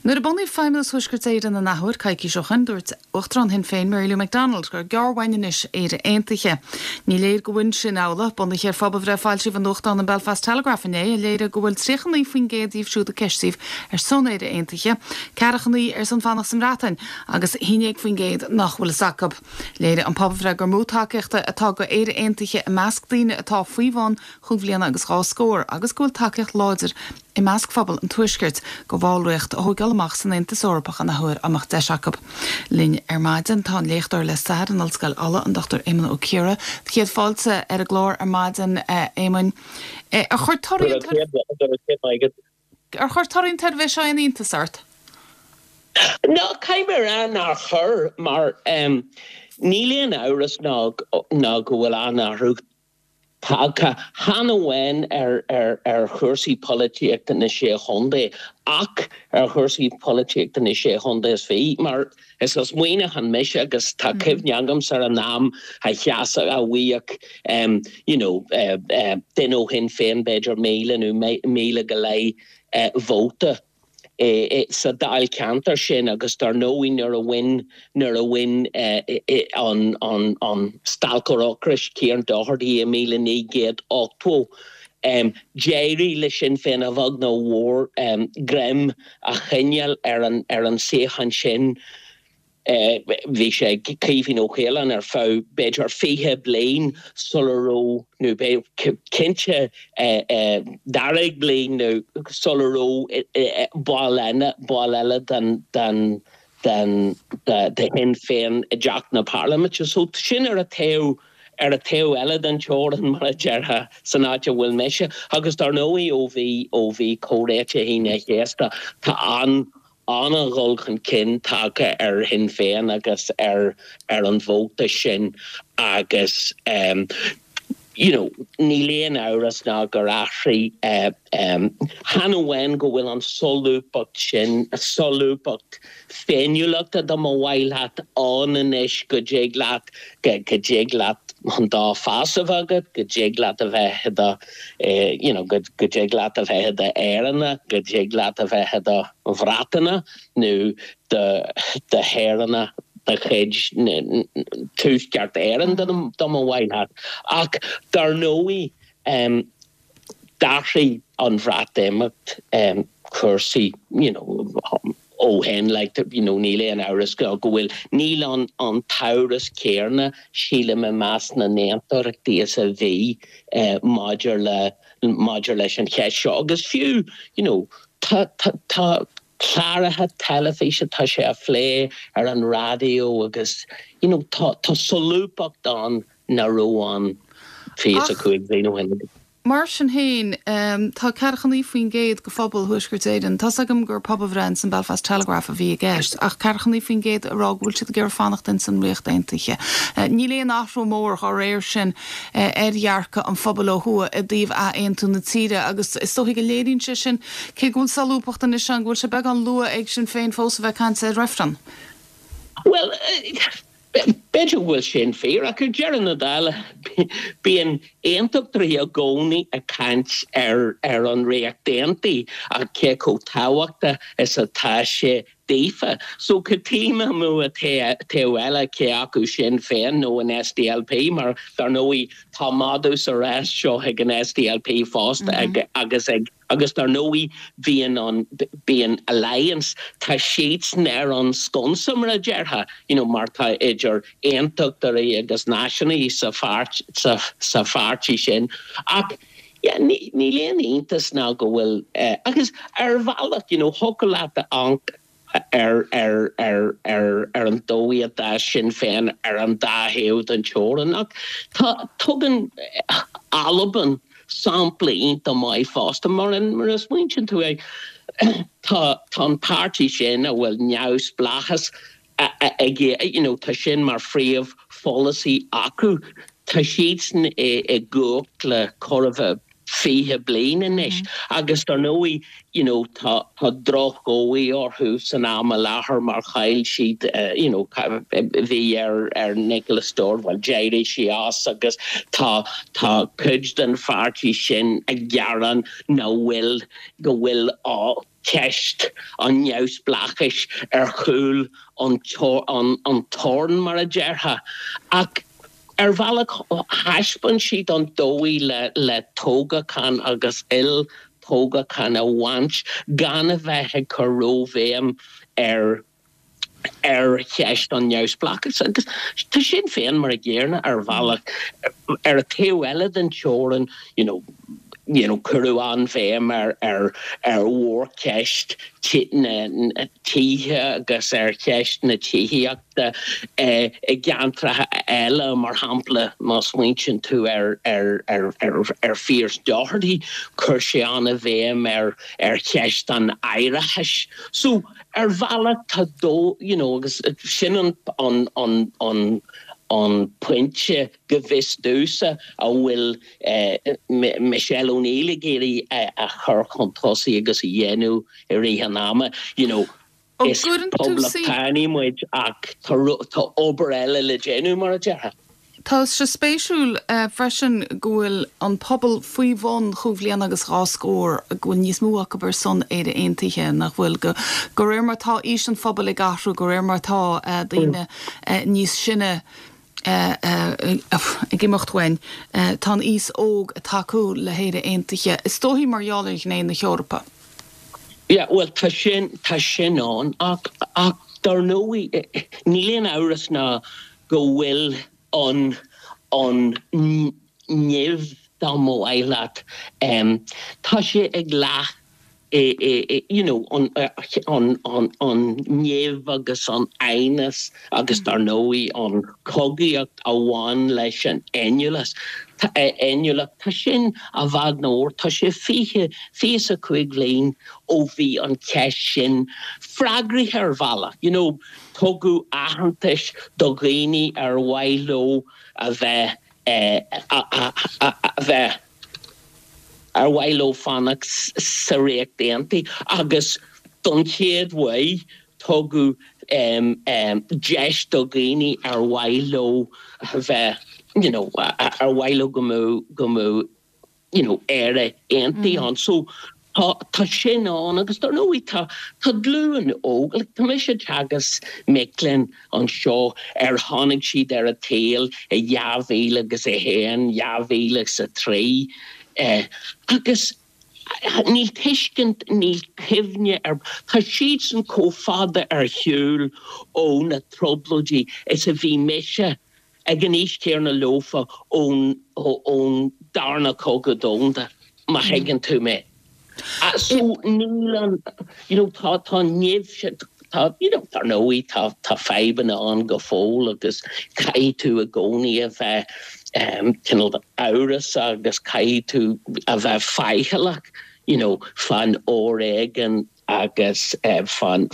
Nuair a bunaíodh Feidhmeannas Thuaisceart Éireann an athuair, coicís ó shoin, dúirt Uachtarán Shinn Féin, Mary Lou McDonald, gur gearr uainn anois Éire Aontaithe. Ní léir go bhfuil sin amhlaidh, bunaithe ar phobalbhreith a foilsíodh i nuachtán an Belfast Telegraph inné, a léirigh go bhfuil 39% díobh siúd a ceistíodh ar son Éire Aontaithe, 49 ar son fanacht sa mBreatain agus 11% nach bhfuil fhios acu. Léirigh an pobalbhreith gur mó tacaíochta atá go Éire Aontaithe i measc daoine atá faoi bhun chúig bhliana agus dhá scór agus go bhfuil tacaíocht láidir i measc phobal an Tuaiscirt go bhallraíocht a thóigeáil amach san Aontas Eorpach an athuair dá mbeadh deis acu. Linn ar maidin tá an léachtóir le stair in Ollscoil Uladh, an Dr Éamonn Ó Ciardha. Do chéad fáilte ar an gclár ar maidin, a Éamoinn. Ar chuir torthaí an Ar chuir torthaí an tsuirbhé seo aon iontas ort? No, caithfidh mé a rá nár chuir, mar níl aon amhras ná go bhfuil an-athrú tagtha, chan amháin ar chúrsaí polaitíochta na Sé Chontae ach ar chúrsaí polaitíochta na Sé Chontae is fiche, mar is as Muineachán mise agus tá cuimhne agamsa ar an am a sheasadh, a bhfaigheadh you know duine ó Shinn Féin b'fhéidir 1,000 nó 1,000 go leith vóta. sa dáilcheantar sin agus dar ndóigh nuair a bhain nuair a bhain an an an stailceoir ocrais Kieran Doherty i 1980 d'éirigh le Sinn Féin a bheag nó a mhór greim a choinneáil ar an ar an suíochán sin. Bhí sé ag Caoimhín Ó Caoláin ar feadh b'fhéidir 20 bliain sula raibh, nó cinnte daichead bliain nó sula raibh ball eile, ball eile den, den, den, de Shinn Féin i dTeach na Parlaiminte. So sin ar an taobh, ar an taobh eile den teorainn, mar a déarfá, san áit a bhfuil mise. Agus dar ndóigh ó bhí, ó bhí Comhréiteach Aoine an Chéasta, tá an, an-dhul chun cinn tagtha ar Shinn Féin agus ar ar an vóta sin agus you know níl aon amhras ná gur athraigh chan amháin go bhfuil an solúbthacht sin, solúbthacht féiniúlachta dá mba mhaith leat ann anois go dtig leat go dtig leat an dá phas a bheith agat, go dtig leat a bheith i do you know go dtig leat a bheith i d'Éireannach, go dtig leat a bheith i do Bhreatanach nó do shaoránach de chuid Tuaisceart Éireann dá mba mhaith leat. Ach dar ndóigh d'athraigh an Bhreatimeacht cúrsaí you know ó shin like you know níl aon amhras go bhfuil, níl an an t-amhras céanna sílim i measc na n-aontachtaithe is a bhí maidir le maidir leis an cheist seo agus fiú you know tá tá tá cláracha teilifíse tá sé á phlé ar an raidió agus you know tá tá solúbthacht ann nach raibh ann 25 bliain ó shin. Mar sin féin, tá 49% de phobal Thuaisceart Éireann, tá's agam gur pobalbhreith ins an Belfast Telegraph a bhí i gceist, ach 49% ag rá go bhfuil siad ag iarraidh fanacht ins an Ríocht Aontaithe. Níl aon athrú mór dá réir sin ar dhearcadh an phobail ó thuaidh i dtaobh ath-aontú na tíre agus is dóichí go léiríonn sé sin, cé go bhfuil solúbthacht anois ann, go bhfuil sé beagán luath ag Sinn Féin fós a bheith ag caint ar reifreann. Bhuel, b'fhéidir go bhfuil sin fíor, ach ar deireadh na dála, bíonn aontachtóirí i gcónaí ag caint ar an Ríocht Aontaithe ach cé chomh tábhachtach is atá sé daofa. So cad tuigim amuigh an taobh eile, cé acu Sinn Féin nó an SDLP, mar dar ndóigh tá madadh sa rás seo ag an SDLP fosta agus ag Agus dar ndóigh bíonn an, bíonn Alliance, tá siadsan ar an sconsa mar a déarfá, you know mar tá idir aontachtóirí agus náisiúnaithe sa pháirt, sa, sa pháirtí sin. Ach yeah, ní, níl aon iontas ná go bhfuil eh, agus ar bhealach, you know, thiocfadh leat a amharc ar an dóigh a d'fhás Sinn Féin ar an dá thaobh den teorainn. Ach tá, tugann Albain sampla iontach maith fosta, mar mar a smaointíonn tú air, tá tá an páirtí sin a bhfuil neamhspleáchas ag, you know, tá sin mar phríomhpholasaí acu, tá siadsan i gcumhacht le chóir a bheith. 20 bliain anois agus dar ndóigh you know tá tá drochdhóigh orthu san am i láthair mar chaill siad you know bhí ar ar Nicola Sturgeon bhuel d'éirigh sí as agus tá tá cuid den pháirtí sin ag gearán nach bhfuil go bhfuil ceist an neamhspleáchais ar chúl an an toirn mar a déarfá ach ar bhealach thaispeáin siad an dóigh le le toghachán agus olltoghachán a bhaint gan a bheith ag cur róbhéim ar ar cheist an neamhspleáchais agus tá Sinn Féin mar a gcéanna ar bhealach. Ar an taobh eile den teorainn, you know, you know, cuireadh an-bhéim ar ar ar mhórcheist na tithe agus ar cheist na tithíochta i gceantracha eile, mar shampla, má smaointíonn tú ar ar ar ar ar Phearse Doherty, chuir sé an-bhéim ar ar cheist an áireachais. So, Ar bhealach tá dó, you know, agus sin an, an, an, an, an pointe go bhfios domhsa a bhfuil Michelle O'Neill ag iarraidh a chur chun tosaigh agus a dhéanamh i rith an ama, you know, is poblachtánaigh muid ach tá, tá obair eile le déanamh, mar a déarfá. Tá sé spéisiúil freisin go bhfuil an pobal faoi bhun chúig bhliana agus dhá scór, go bhfuil níos mó acu ar son Éire Aontaithe, nach bhfuil? Go, de réir mar atá aois an phobail ag athrú, de réir mar atá daoine níos sine ag imeacht uainn, tá an aos óg ag tacú le hÉire Aontaithe, is dóichí mar gheall ar ghné na hEorpa. Yeah, bhuel, tá sin, tá sin ann ach, ach dar ndóigh, níl aon amhras ná go bhfuil an an nimh, dá mba mhaith leat, tá sé ag leath i you know an an an an nimh agus an aighneas agus dar ndóigh an chogaíocht a bhain leis an fhéiniúlacht, fhéiniúlacht, tá sin i bhfad nó tá sé 20, 25 bhliain ó bhí an cheist sin freagraithe ar bhealach, you know. Tugadh aitheantas do dhaoine ar mhaith leo a bheith a bheith ar mhaith leo fanacht sa Ríocht Aontaithe agus don chéad uair tugadh deis do dhaoine ar mhaith leo a bheith you know ar mhaith leo go mbeadh go mbeadh you know, Éire aontaithe ann. So tá, tá sin ann agus dar ndóigh tá, tá glúin óg, like tá mise ag teagasc mic léinn anseo ar tháinig siad ar an tsaol i 2001, 2003 eh agus níl tuiscint, níl cuimhne ar, tá siadsan chomh fada ar shiúl ó na trioblóidí is a bhí mise ag an aois chéanna leofa ón ón darna cogadh domhanda, má thuigeann tú mé. So níl an, you know, tá tá an nimh sin, tá, you know, dar ndóigh tá tá fadhbanna ann go fóill agus caithfidh tú i gcónaí a bheith cineál amhrasach agus caithfidh tú a bheith faichilleach, you know, fán fhoréigean agus fán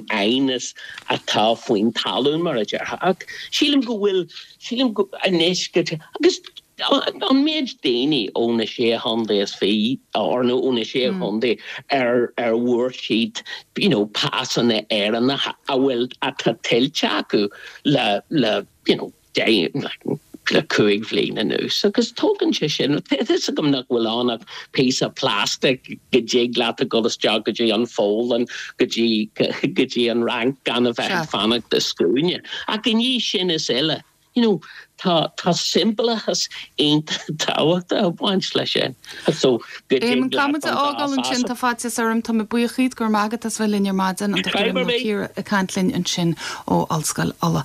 aighneas atá faoin talún, mar a déarfá. Ach sílim go bhfuil, sílim go, anois go, agus an méid daoine ó na Sé Chontae is Fiche, or nó ó na Sé Chontae ar ar bhfuair siad, you know, pasanna Éireannacha a bhfuil, atá tuillte acu le, le, you know, le 5 bhliain anuas agus tógann sé sin, tá a fhios agam nach bhfuil ann ach píosa plastic go dtig leat a dhul isteach go dtí an Pholainn, go dtí go dtí an Fhrainc gan a bheith ag fanacht i scuaine. Ach i ndiaidh sin is uile, you know, tá tá siombalachas iontach tábhachtach ag baint leis sin. So go dtig leat an dá phas a. Éamonn, caithfidh muid a fhágáil ansin, tá faitíos orm, tá mé buíoch díot, go raibh maith agat as bheith linn ar maidin, an Dr. Éamonn Ó Ciardha ag caint linn ansin ó Ollscoil Uladh.